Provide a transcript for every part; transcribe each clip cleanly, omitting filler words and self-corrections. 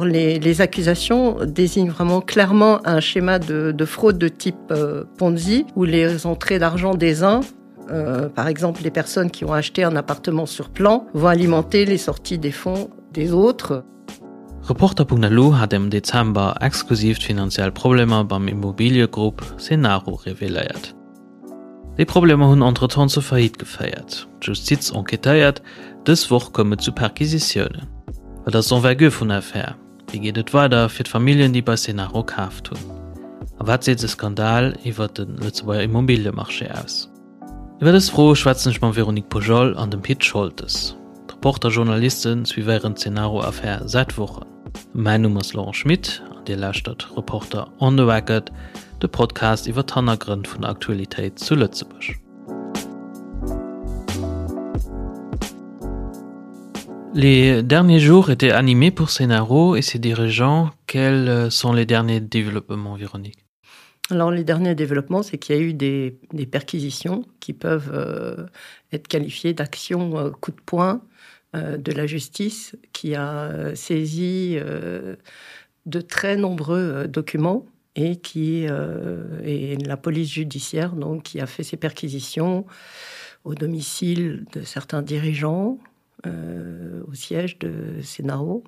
Les, les accusations désignent vraiment clairement un schéma de, de fraude de type euh, Ponzi où les entrées d'argent des uns, euh, par exemple les personnes qui ont acheté un appartement sur plan, vont alimenter les sorties des fonds des autres. Reporter.lu hat am Dezember exklusiv d'finanziell Problemer beim Immobiliëgrupp Cenaro reveléiert. Déi Problemer hunn entretemps zur Faillite geféiert. D'Justiz enquêtéiert, dës Woch koum et zu Perquisitiounen. Wat ass d'Envergure vun der Affär? Wéi geet et weider fir d'Familljen, déi bei Cenaro kaaft hunn? A wat seet de Skandal iwwer de Lëtzebuerger Immobiliemarché aus? Iwwer dës Froe schwätzen ech mam Véronique Pujol an dem Pit Scholtes. D'Reporter-Journaliste suivéieren d'Cenaro-Affär säit Wochen. Mäin Numm ass Laurent Schmit an Dir lauschtert Reporter on the Record, de Podcast iwwer d'Hannergrënn vun der Aktualitéit zu Lëtzebuerg. Les derniers jours étaient animés pour Cenaro et ses dirigeants. Quels sont les derniers développements, Véronique? Alors les derniers développements, c'est qu'il y a eu des, des perquisitions qui peuvent euh, être qualifiées d'actions euh, coup de poing euh, de la justice qui a euh, saisi euh, de très nombreux euh, documents et qui euh, et la police judiciaire donc qui a fait ses perquisitions au domicile de certains dirigeants euh, au siège de Sénaro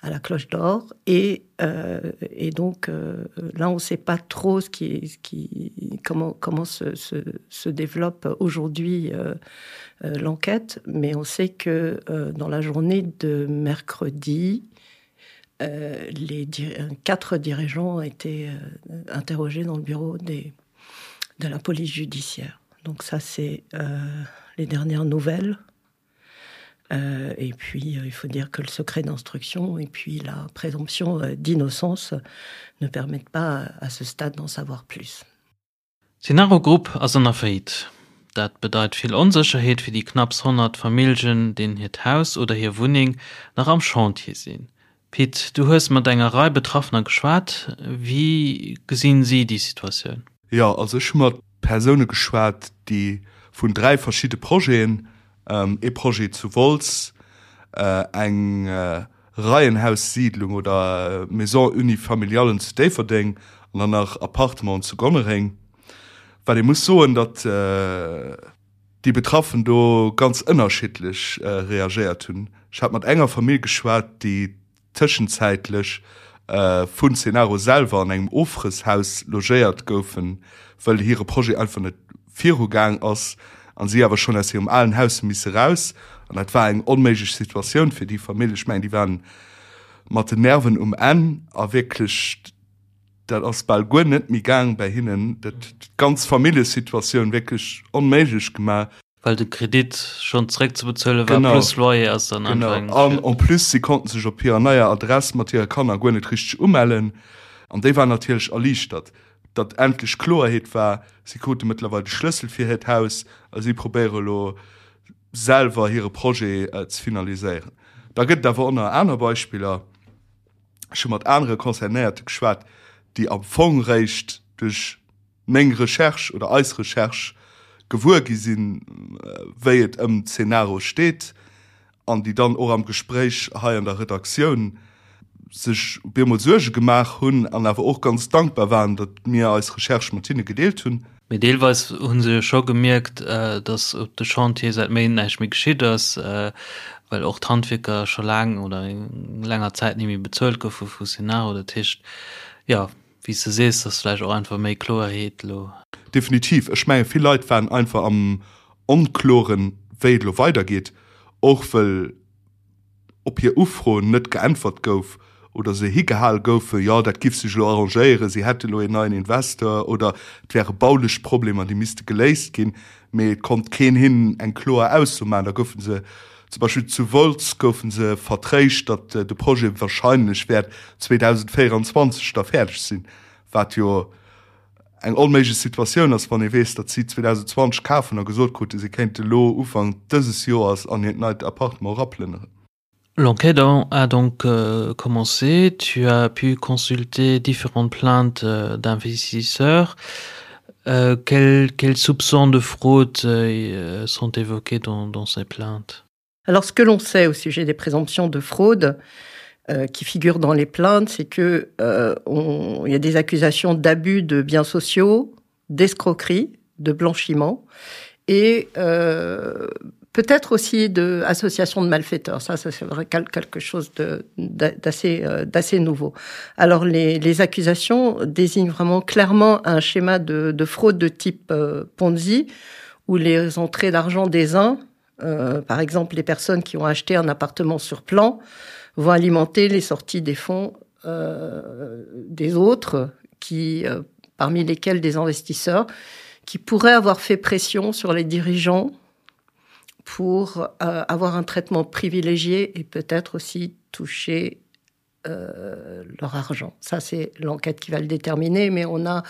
à la cloche d'or et, euh, et donc euh, là on ne sait pas trop ce qui, ce qui comment comment se, se, se développe aujourd'hui euh, euh, l'enquête mais on sait que euh, dans la journée de mercredi euh, les di quatre dirigeants ont été euh, interrogés dans le bureau des de la police judiciaire donc ça c'est euh, les dernières nouvelles Euh, et puis euh, il faut dire que le secret d'instruction et puis la présomption euh, d'innocence ne permettent pas à ce stade d'en savoir plus. Cenaro Group ass an der Faillite. Dat bedeit vill Onsécherheet fir déi knapps 100 Familljen, deenen hiert Haus oder hir Wunneng nach am Chantier sinn. Pit, du hues mat enger Rei Betraffener geschwat. Wéi gesinn si déi Situatioun? Jo, also ech hu mat Persoune geschwat, déi vun 3 verschidde Projeten, ee Projet zu Wolz, eng Reihenhaussiedlung oder Maison unifamiliale zu Déifferdeng an dann nach Appartementen zu Gonnereng. Wat ee muss soen, datt déi Betraffen do ganz ënnerschiddlech reagéiert hunn. Ech hat mat enger Famill geschwat, déi tëschenzäitlech vun Cenaro selwer an engem Ofrësshaus logéiert goufen, wëll hire Projet einfach net virugaang ass an si awer schonn aus hirem alen Haus hu misse raus. An dat war eng onméiglech Situatioun fir déi Famill. Ech mengen, déi waren mat den Nerven um Enn a wierklech, dat ass bal guer net méi gaang bäi hinnen. Dat huet d'ganz Familljesituatioun wierklech onméiglech gemaach. Well de Kredit schonn zeréckzebezuele war, plus Loyer ass dann einfach eng. Genau, an en plus, si konnten sech op hirer neier Adress mat hire Kanner guer net richteg umellen. An déi waren natierlech erliichtert, datt endlech Kloerheet war. Si krute mëttlerweil de Schlëssel fir hiert Haus a si probéiere elo selwer hire Projet ze finaliséieren. Da gëtt et awer och nach aner Beispiller. Ech hu mat anere Concernéierte geschwat, déi am Fong réischt duerch meng Recherche oder eis Recherche gewuer gi sinn, wéi et ëm d'Cenaro steet, an déi dann och am Gespréich hei an der Redaktioun sech op eemol Suerge gemaach hunn an awer och ganz dankbar waren, datt mir eis Recherche mat hinne gedeelt hunn. Mee deelweis hu se jo scho gemierkt, datt op de Chantier säit Méint näischt méi geschitt ass, well och d'Handwierker scho laang oder eng länger Zäit ni méi bezuelt goufe vu Cenaro. Dat heescht, jo, Wéi s de sees, ass vläicht och einfach méi Kloerheet elo. Definitiv. Ech menge vill Leit waren einfach am Onkloren, wéi et elo weidergeet, och wëll op hir Ufroen net geäntwert gouf oder se higehal goufen, jo dat giff sech elo arrangéieren, si hätte elo een neien Investeur oder et wäre baulech Problemer, déi misste geléist ginn, mee et konnt keen hinnen eng kloer Ausso maachen. Da goufe se Zum Beispill zu Wolz goufe se vertréischt, datt de Projet warscheinlech wäert 2024 da fäerdeg sinn, wat jo eng onméiglech Situatioun ass, wann ee weess, datt si 2020 kafen a gesot kruten, si kéinte elo Ufank dëses Joers an hiert neit Appartement eraplënneren. L'enquête a donc commencé. Tu as pu consulter différentes plaintes d'investisseurs. Quels, quels soupçons de fraude sont évoqués dans, dans ces plaintes Alors ce que l'on sait au sujet des présomptions de fraude, euh, qui figurent dans les plaintes, c'est que euh, on, il y a des accusations d'abus de biens sociaux, d'escroquerie, de blanchiment et euh, peut-être aussi de association de malfaiteurs. Ça, ça c'est vrai quelque chose d'assez euh, d'assez nouveau. Alors les, les accusations désignent vraiment clairement un schéma de, de fraude de type euh, Ponzi où les entrées d'argent des uns, euh, par exemple les personnes qui ont acheté un appartement sur plan, vont alimenter les sorties des fonds euh, des autres qui euh, parmi lesquels des investisseurs qui pourraient avoir fait pression sur les dirigeants pour euh, avoir un traitement privilégié et peut-être aussi toucher euh, leur argent. Ça, c'est l'enquête qui va le déterminer, mais on a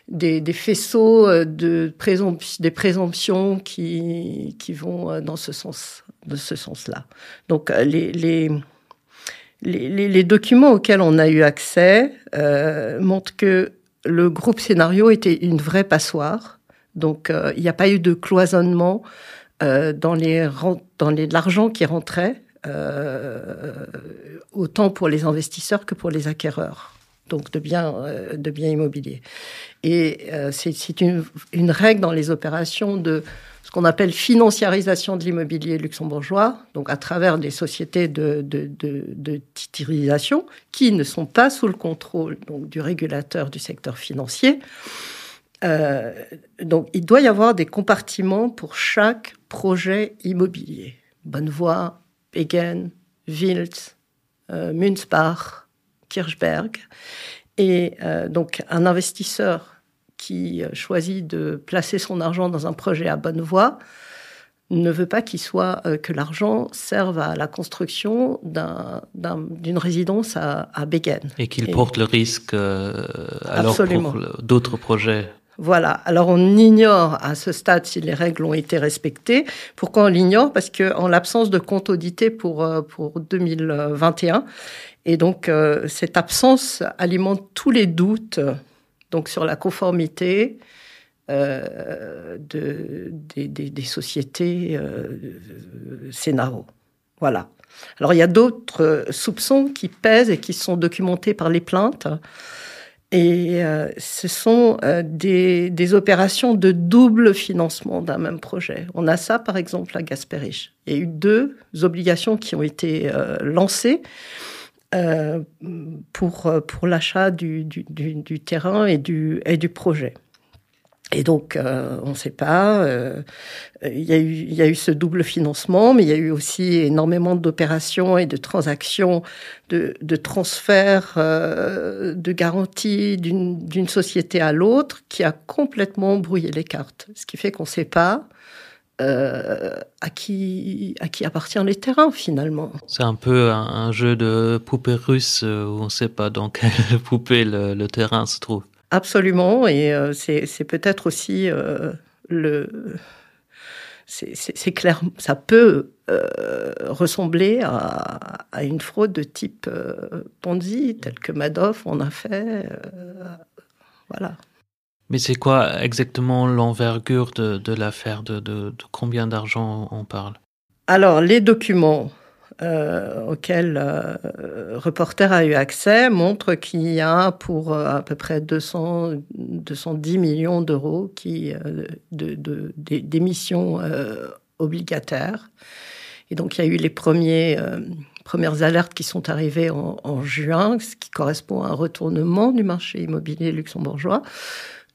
des, des faisceaux euh, de présomption, des présomptions qui, qui vont euh, dans ce sens de ce sens-là. Donc euh, les, les, les, les, les documents auxquels on a eu accès euh, montrent que le groupe scénario était une vraie passoire. Donc euh, il n'y a pas eu de cloisonnement euh, dans les dans les l'argent qui rentrait euh, autant pour les investisseurs que pour les acquéreurs donc de biens euh, de biens immobiliers et euh, c'est une, une règle dans les opérations de ce qu'on appelle financiarisation de l'immobilier luxembourgeois donc à travers des sociétés de, de, de, de titrisation qui ne sont pas sous le contrôle donc du régulateur du secteur financier euh, donc il doit y avoir des compartiments pour chaque projet immobilier Bonnevoie, Begen, Wiltz, euh, Münzbach, Kirchberg et euh, donc un investisseur qui euh, choisit de placer son argent dans un projet à bonne voie ne veut pas qu'il soit euh, que l'argent serve à la construction d'une un, d'un, résidence à, à Begen. Et qu'il porte le risque euh, alors pour d'autres projets. Voilà. Alors on ignore à ce stade si les règles ont été respectées. Pourquoi on l'ignore Parce que en l'absence de compte audité pour, euh, pour 2021 et donc euh, cette absence alimente tous les doutes donc sur la conformité euh, de, des, des, des sociétés euh, Scénaro. Voilà. Alors il y a d'autres soupçons qui pèsent et qui sont documentés par les plaintes. Et euh, ce sont euh, des, des opérations de double financement d'un même projet. On a ça, par exemple, à Gasperich. Il y a eu deux obligations qui ont été euh, lancées euh, pour, euh, pour l'achat du, du, du, du terrain et du, et du projet. Et donc, euh, on ne sait pas. Euh, il, y a eu, il y a eu ce double financement, mais il y a eu aussi énormément d'opérations et de transactions, de, de transferts, euh, de garanties d'une société à l'autre qui a complètement brouillé les cartes. Ce qui fait qu'on ne sait pas euh, à, qui, à qui appartient les terrains finalement. C'est un peu un, un jeu de poupée russe euh, où on ne sait pas dans quelle poupée le, le terrain se trouve. Absolument, et euh, c'est peut-être aussi euh, le. C'est clair, ça peut euh, ressembler à, à une fraude de type euh, Ponzi, tel que Madoff en a fait. Euh, voilà. Mais c'est quoi exactement l'envergure de, de l'affaire de, de, de combien d'argent on parle Alors, les documents euh, auxquels euh, Reporter a eu accès montrent qu'il y a pour euh, à peu près 200, 210 millions d'euros qui euh, d'émissions euh, obligataires. Et donc il y a eu les premiers, euh, premières alertes qui sont arrivées en, en juin, ce qui correspond à un retournement du marché immobilier luxembourgeois.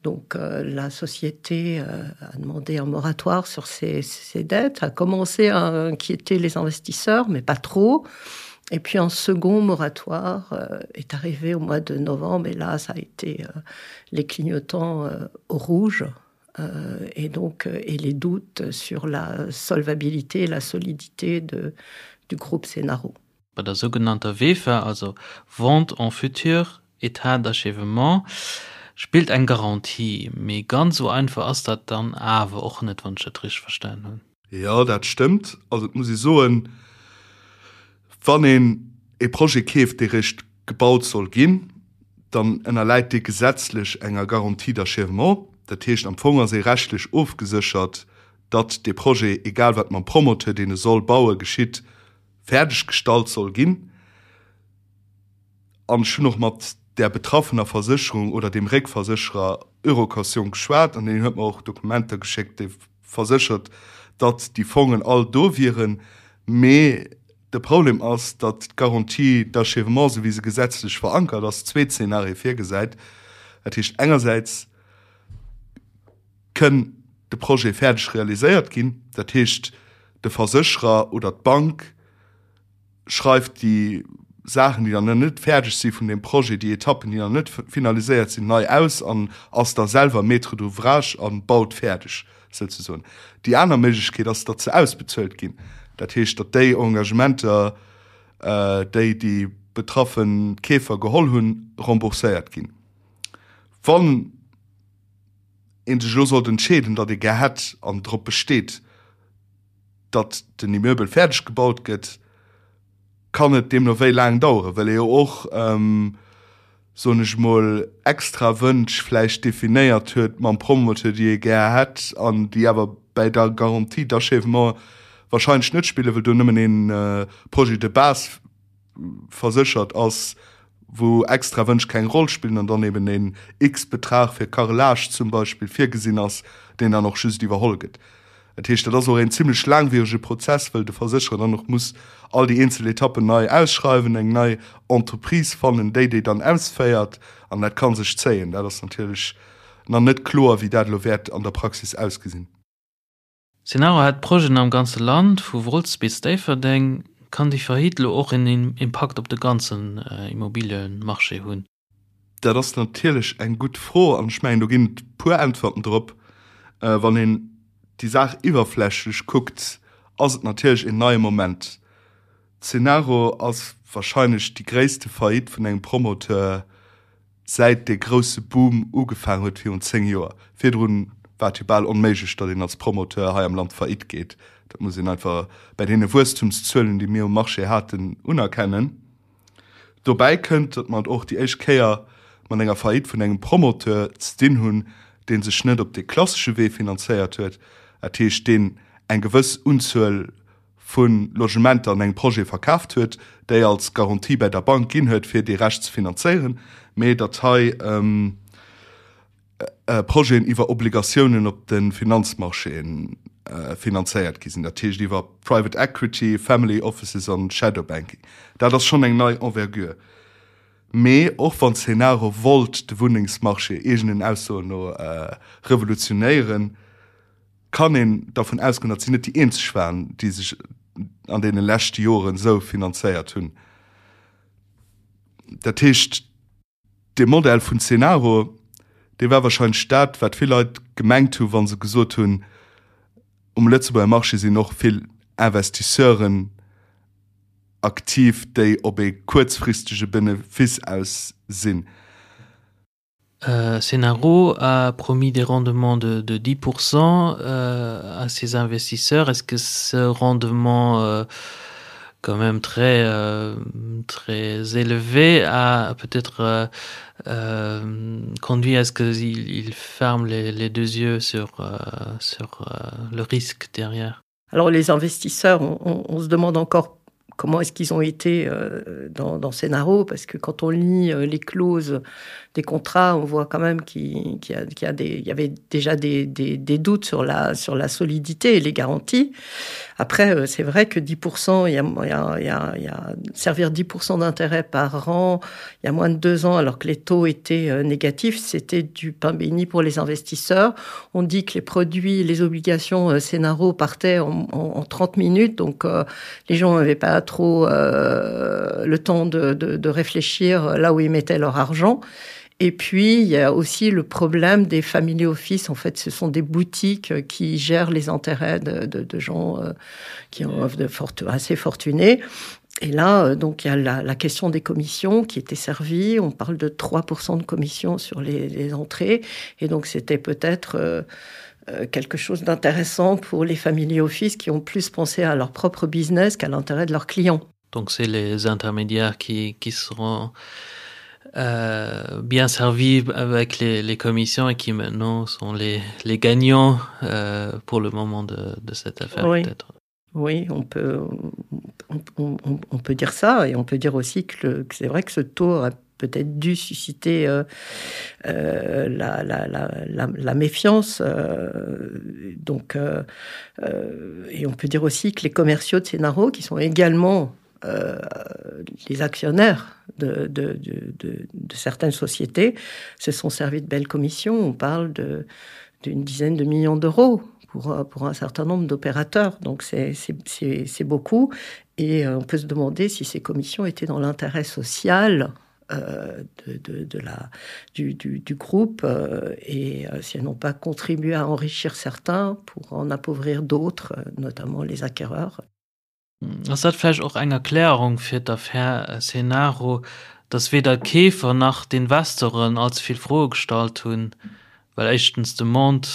Donc euh, la société euh, a demandé un moratoire sur ses, ses dettes, a commencé à inquiéter les investisseurs, mais pas trop. Et puis un second moratoire euh, est arrivé au mois de novembre et là ça a été euh, les clignotants euh, au rouge euh, et donc euh, et les doutes sur la solvabilité et la solidité de, du groupe Scénaro. Bei der sougenannter VEFA, also Vente en futur état d'achèvement, spillt eng Garantie. Mee ganz esou einfach ass dat dann awer och net, wann ech dat richteg verstan hunn. Jo, dat stëmmt. Also et muss ee soen, wann een e Projet keeft, dee réischt gebaut soll ginn, dann ënnerläit dee gesetzlech enger Garantie d'achèvement. Dat heescht, am Fong ass ee rechtlech ofgeséchert, datt dee Projet, egal wat mam Promoteur, deen e soll bauen, geschitt, fäerdeg gestallt soll ginn. An ech hunn och mat där betraffener Versécherung oder deem Réckversécherer Eurocaution geschwat an deen huet mer och Dokumenter geschéckt, dee verséchert, datt déi Fongen all do wieren. Mee de Problem ass, datt d'Garantie d'achèvement, esou wéi se gesetzlech verankert ass, zwee Zeenarie virgesäit. Dat heescht engersäits kënn de Projet fäerdeg realiséiert ginn, dat heescht de Versécherer oder d'Bank schreift déi Saachen, déi dann net fäerdeg si vun deem Projet, déi Etappen, déi nach net finaliséiert sinn, nei aus an ass da selwer Maître d'ouvrage a baut fäerdeg souzesoen. Déi aner Méiglechkeet ass, datt se ausbezuelt ginn, dat heescht, datt déi Engagementer, déi déi betraffe Keefer geholl hunn, rembourséiert ginn. Wann ee sech elo sollt entscheeden, datt ee gär hätt an drop besteet, datt den Immeubel fäerdeg gebaut gëtt, kann et deemno wéi laang daueren, well ee jo och, soen ech emol, extra Wënsch vläicht definéiert huet mam Promoteur, déi ee gär hätt an déi awer bäi der Garantie d'achèvement wahrscheinlech net spillen, well do nëmmen ee Projet de base verséchert ass, wou extra Wënsch keng Roll spillen an dann eben een X-Betrag fir Carrelage zum Beispill virgesinn ass, deen dann och just iwwerholl gëtt. Dat heescht, dat ass och een zimlech laangwierege Prozess, well de Versécherer dann och muss all déi eenzel Etappen nei ausschreiwen, eng nei Entreprise fannen, déi déi dann ausféiert, an dat ka sech zéien. Dat ass natierlech nach net kloer, wéi dat elo wäert an der Praxis ausgesinn. Cenaro hätt Projeten am ganze Land, vu Wolz bis Déifferdeng. Kann déi Faillite elo och en Impakt op de ganzen Immobiliemarché hunn? Dat ass natierlech eng gutt Fro an ech mengen, do ginn et e puer Äntwerten drop. Wann een déi Saach iwwerflächlech kuckt, ass et natierlech een neie Moment. Cenaro ass warscheinlech déi gréisste Faillite vun engem Promoteur säit dee grousse Boom ugefaang huet virun 10 Joer. Virdrun war et jo bal onméiglech, datt een als Promoteur hei am Land Faillite geet. Dat muss een einfach bäi deene Wuesstumszuelen, déi mir um Marché haten, unerkennen. Dobäi kënnt, datt mer et och déi éischt Kéier mat enger Faillite vun engem Promoteur ze dinn hunn, dee sech net op dee klassesche Wee finanzéiert huet, dat heescht deen eng gewëss Unzuel vu Logementer an engem Projet verkaaft huet, déi als Garantie bäi der Bank ginn huet, fir dee Rescht ze finanzéieren, mee datt hei Projeten iwwer Obligatiounen op de Finanzmarchéen finanzéiert gi sinn, dat heescht iwwer Private Equity, Family Offices an Shadow Banking. Dat ass schonn eng nei Envergure. Mee och wann Cenaro wollt de Wunnengsmarché eegenen Aussoen no revolutionéieren, kann een dervun ausgoen, datt si net déi eenzeg waren, déi sech an deene leschte Joren esou finanzéiert hunn. Dat heescht, dee Modell vun Cenaro, dee war wahrscheinlech dat, wat vill Leit gemengt hu wa se gesot hunn, um Lëtzebuerger Marché sinn och vill Investisseuren aktiv, déi op ee kuerzfristege Benefice aus sinn. Euh, Cenaro a promis des rendements de, de 10% euh, à ses investisseurs. Est-ce que ce rendement euh, quand même très, euh, très élevé a peut-être euh, euh, conduit à ce qu'il il ferme les, les deux yeux sur, euh, sur euh, le risque derrière? Alors les investisseurs, on, on, on se demande encore comment est-ce qu'ils ont été euh, dans, dans Cenaro, parce que quand on lit euh, les clauses des contrats, on voit quand même qu'il qu y, qu y, a des, y avait déjà des, des, des doutes sur la, sur la solidité et les garanties. Après, euh, c'est vrai que 10%, il y a, y a, y a, y a servir 10% d'intérêt par an, il y a moins de deux ans, alors que les taux étaient euh, négatifs, c'était du pain béni pour les investisseurs. On dit que les produits, les obligations euh, Cenaro partaient en, en, en 30 minutes, donc euh, les gens n'avaient pas trop euh, le temps de, de, de réfléchir là où ils mettaient leur argent. Et puis, il y a aussi le problème des family office. En fait, ce sont des boutiques qui gèrent les intérêts de, de, de gens euh, qui ont de forte, assez fortunés. Et là, euh, donc, il y a la, la question des commissions qui était servie. On parle de 3% de commissions sur les, les entrées. Et donc, c'était peut-être euh, euh, quelque chose d'intéressant pour les family office qui ont plus pensé à leur propre business qu'à l'intérêt de leurs clients. Donc c'est les intermédiaires qui, qui seront euh, bien servis avec les, les commissions et qui maintenant sont les, les gagnants euh, pour le moment de, de cette affaire oui. peut-être. Oui, on peut, on, on, on peut dire ça et on peut dire aussi que, le, que c'est vrai que ce tour a peut-être dû susciter euh, euh, la, la, la, la, la méfiance. Euh, donc, euh, euh, et on peut dire aussi que les commerciaux de Scénaro, qui sont également euh, les actionnaires de, de, de, de, de certaines sociétés, se sont servis de belles commissions. On parle d'une dizaine de millions d'euros pour, euh, pour un certain nombre d'opérateurs. Donc c'est beaucoup. Et euh, on peut se demander si ces commissions étaient dans l'intérêt social euh, de, de, de la, du, du, du groupe euh, et euh, si elles n'ont pas contribué à enrichir certains pour en appauvrir d'autres, euh, notamment les acquéreurs. Ass dat vläicht och eng Erklärung fir d'Affär Cenaro, datt weder d'Keefer nach d'Investoren allze vill Froe gestallt hunn, well éischtens d'Demande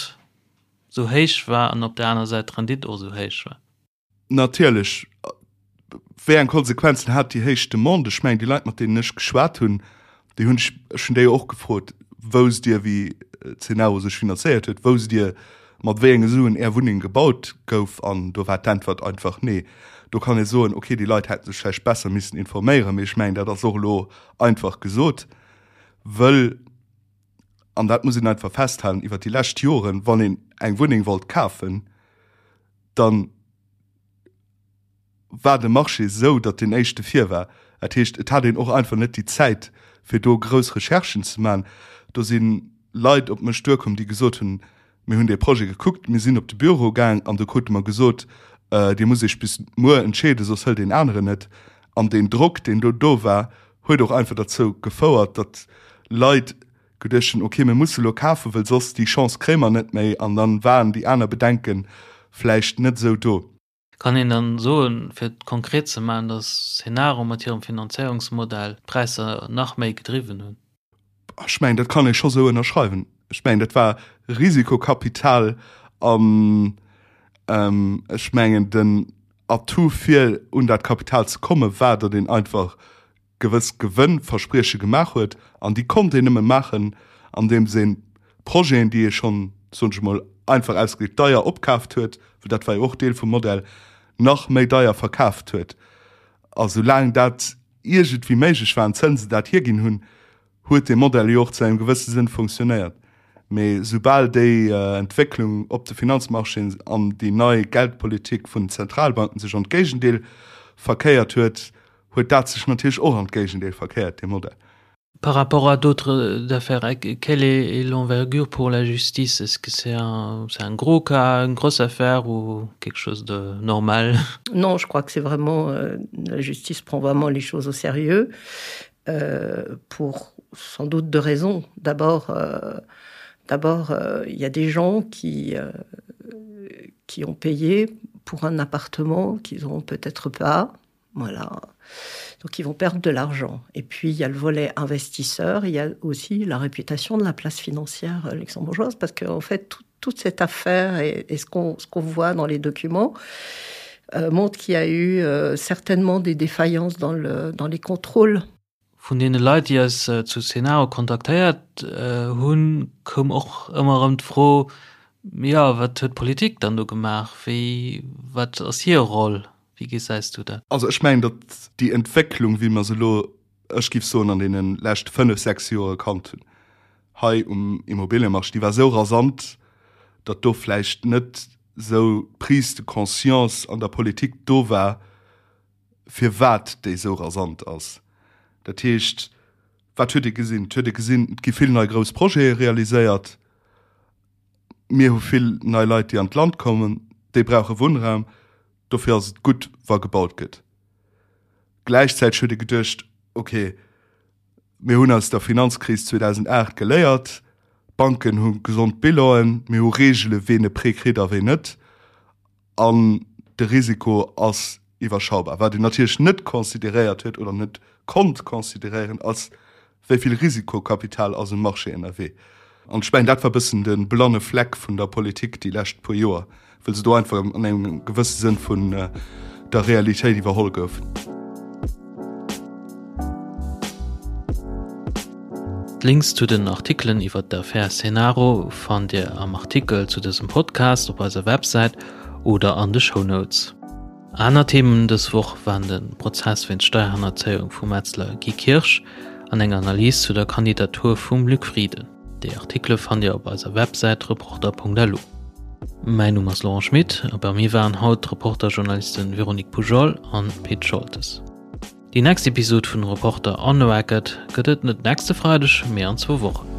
sou héich war an op der aner Säit d'Rendite och sou héich war? Natierlech. Wéi eng Konsequenzen hat déi héich Demande? Ech mengen, déi Leit, mat deenen ech geschwat hunn, déi hunn ech, ech hunn déi jo och gefrot, Wousst Dir, wéi Cenaro sech finanzéiert huet? Wousst Dir, mat wéi enge Suen Är Wunneng gebaut gouf? An do war d'Äntwert einfach Nee. Do kann ee soen, okay, déi Leit hätte sech vläicht besser missen informéieren, mee ech mengen, dat ass och elo einfach gesot, wëll, an dat muss een einfach festhalen, iwwert déi lescht Joren, wann een eng Wunneng wollt kafen, dann war de Marché esou, datt deen éischte vir war. Dat heescht, et hat een och einfach net déi Zäit, fir do grouss Recherchen ze maachen. Do si Leit op mech duerkomm, déi gesot hunn, Mir hunn dee Projet gekuckt, mir sinn op de Büro gaang an do krute mer gesot, Dir musst Iech bis muer entscheeden, soss hëlt een aneren et. An deen Drock, deen do do war, huet och einfach derzou gefouert, datt Leit geduecht hunn, ok, mir musse lo kafen, wëll soss déi Chance kréie mer net méi. An dann waren déi aner Bedenke vläicht net esou do. Kann een dann soen, fir et konkret ze maachen, datt Cenaro mat hirem Finanzéierungsmodell d'Präisser nach méi gedriwwen hunn? Ech mengen, dat kann ee scho sou ënnerschreiwen. Ech mengen, dat war Risikokapital an ech mengen, den Atout fir un dat Kapital ze komme war, datt een einfach gewëss Gewënnversprieche gemaach huet an déi konnt een nëmme maachen, andeems een Projeten, déi ee schonn, soen ech emol einfach ausgedréckt, deier opkaaft huet, well dat war jo och Deel vum Modell, nach méi deier verkaaft huet. A soulaang dat iergendwéi méiglech war an d'Zënsen dat hierginn hunn, huet dee Modell jo och zu engem gewësse Sënn funktionéiert. Mee soubal déi Entwécklung op de Finanzmarchéen an déi nei Geldpolitik vun den Zentralbanken sech an d'Géigendeel verkéiert huet, huet dat sech natierlech och an d'Géigendeel verkéiert, dee Modell. Par rapport à d'autres affaires, quelle est l'envergure pour la justice? Est-ce que c'est un, c'est un gros cas, une grosse affaire ou quelque chose de normal? Non, je crois que c'est vraiment euh, la justice prend vraiment les choses au sérieux euh, pour sans doute deux raisons. D'abord, euh, d'abord euh, il y a des gens qui, euh, qui ont payé pour un appartement qu'ils n'auront peut-être pas. Voilà. Donc ils vont perdre de l'argent. Et puis il y a le volet investisseur, il y a aussi la réputation de la place financière euh, luxembourgeoise parce qu'en fait tout, toute cette affaire et, et ce qu'on qu voit dans les documents euh, montre qu'il y a eu euh, certainement des défaillances dans, le, dans les contrôles. Vun deene Leit, déi eis zu Cenaro kontaktéiert hunn, koum och ëmmer erëm d'Fro, Jo, wat huet d'Politik dann do gemaach? Wéi, wat ass hir Roll? Wéi gesäis du dat? Also ech mengen, datt déi Entwécklung, wéi mer se elo, ech géif soen, an deene leschte fënnef, sechs Joer erkannt hunn hei um Immobiliemarché, déi war esou rasant, datt do vläicht net esou d'Prise de conscience an der Politik do war, firwat déi esou rasant ass. Dat heescht, wat huet ee gesinn? Et huet ee gesinn, et gi vill nei grouss Projete realiséiert. Mir hu vill nei Leit, déi an d'Land kommen, déi brauche Wunnraum. Dofir ass et gutt, wa gebaut gëtt. Gläichzäiteg huet ee geduecht, okay, mir hunn aus der Finanzkris 2008 geléiert, d'Banken hu gesond Bilanen, mir hu Reegele ween e Prêt kritt a ween net. An de Risiko ass iwwerschaubar. Wat een natierlech net consideréiert huet oder net konnt consideréieren, ass, wéi vill Risikokapital ass um Marché ënnerwee. An ech mengen, dat war e bëssen de blanne Fleck vun der Politik déi lescht puer Joer, well se do einfach an engem gewësse Sënn vun der Realitéit iwwerholl goufen. D'Links zu den Artikelen iwwer d'Affär Cenaro fannt Dir am Artikel zu dësem Podcast op eiser Websäit oder an de Shownotes. Aner Themen dës Woch waren de Prozess wéinst Steierhannerzéiung vum Metzler Guy Kirsch an eng Analys zu der Kandidatur vum Luc Frieden. Déi Artikele fannt Dir op eiser Websäit reporter.lu. Mäin Numm ass Laurent Schmit a bei mir waren haut d'Reporter-Journalisten Véronique Poujol an Pit Scholtes. Déi nächst Episod vun Reporter on the Record gëtt et net nächste Freideg, mee an zwou Wochen.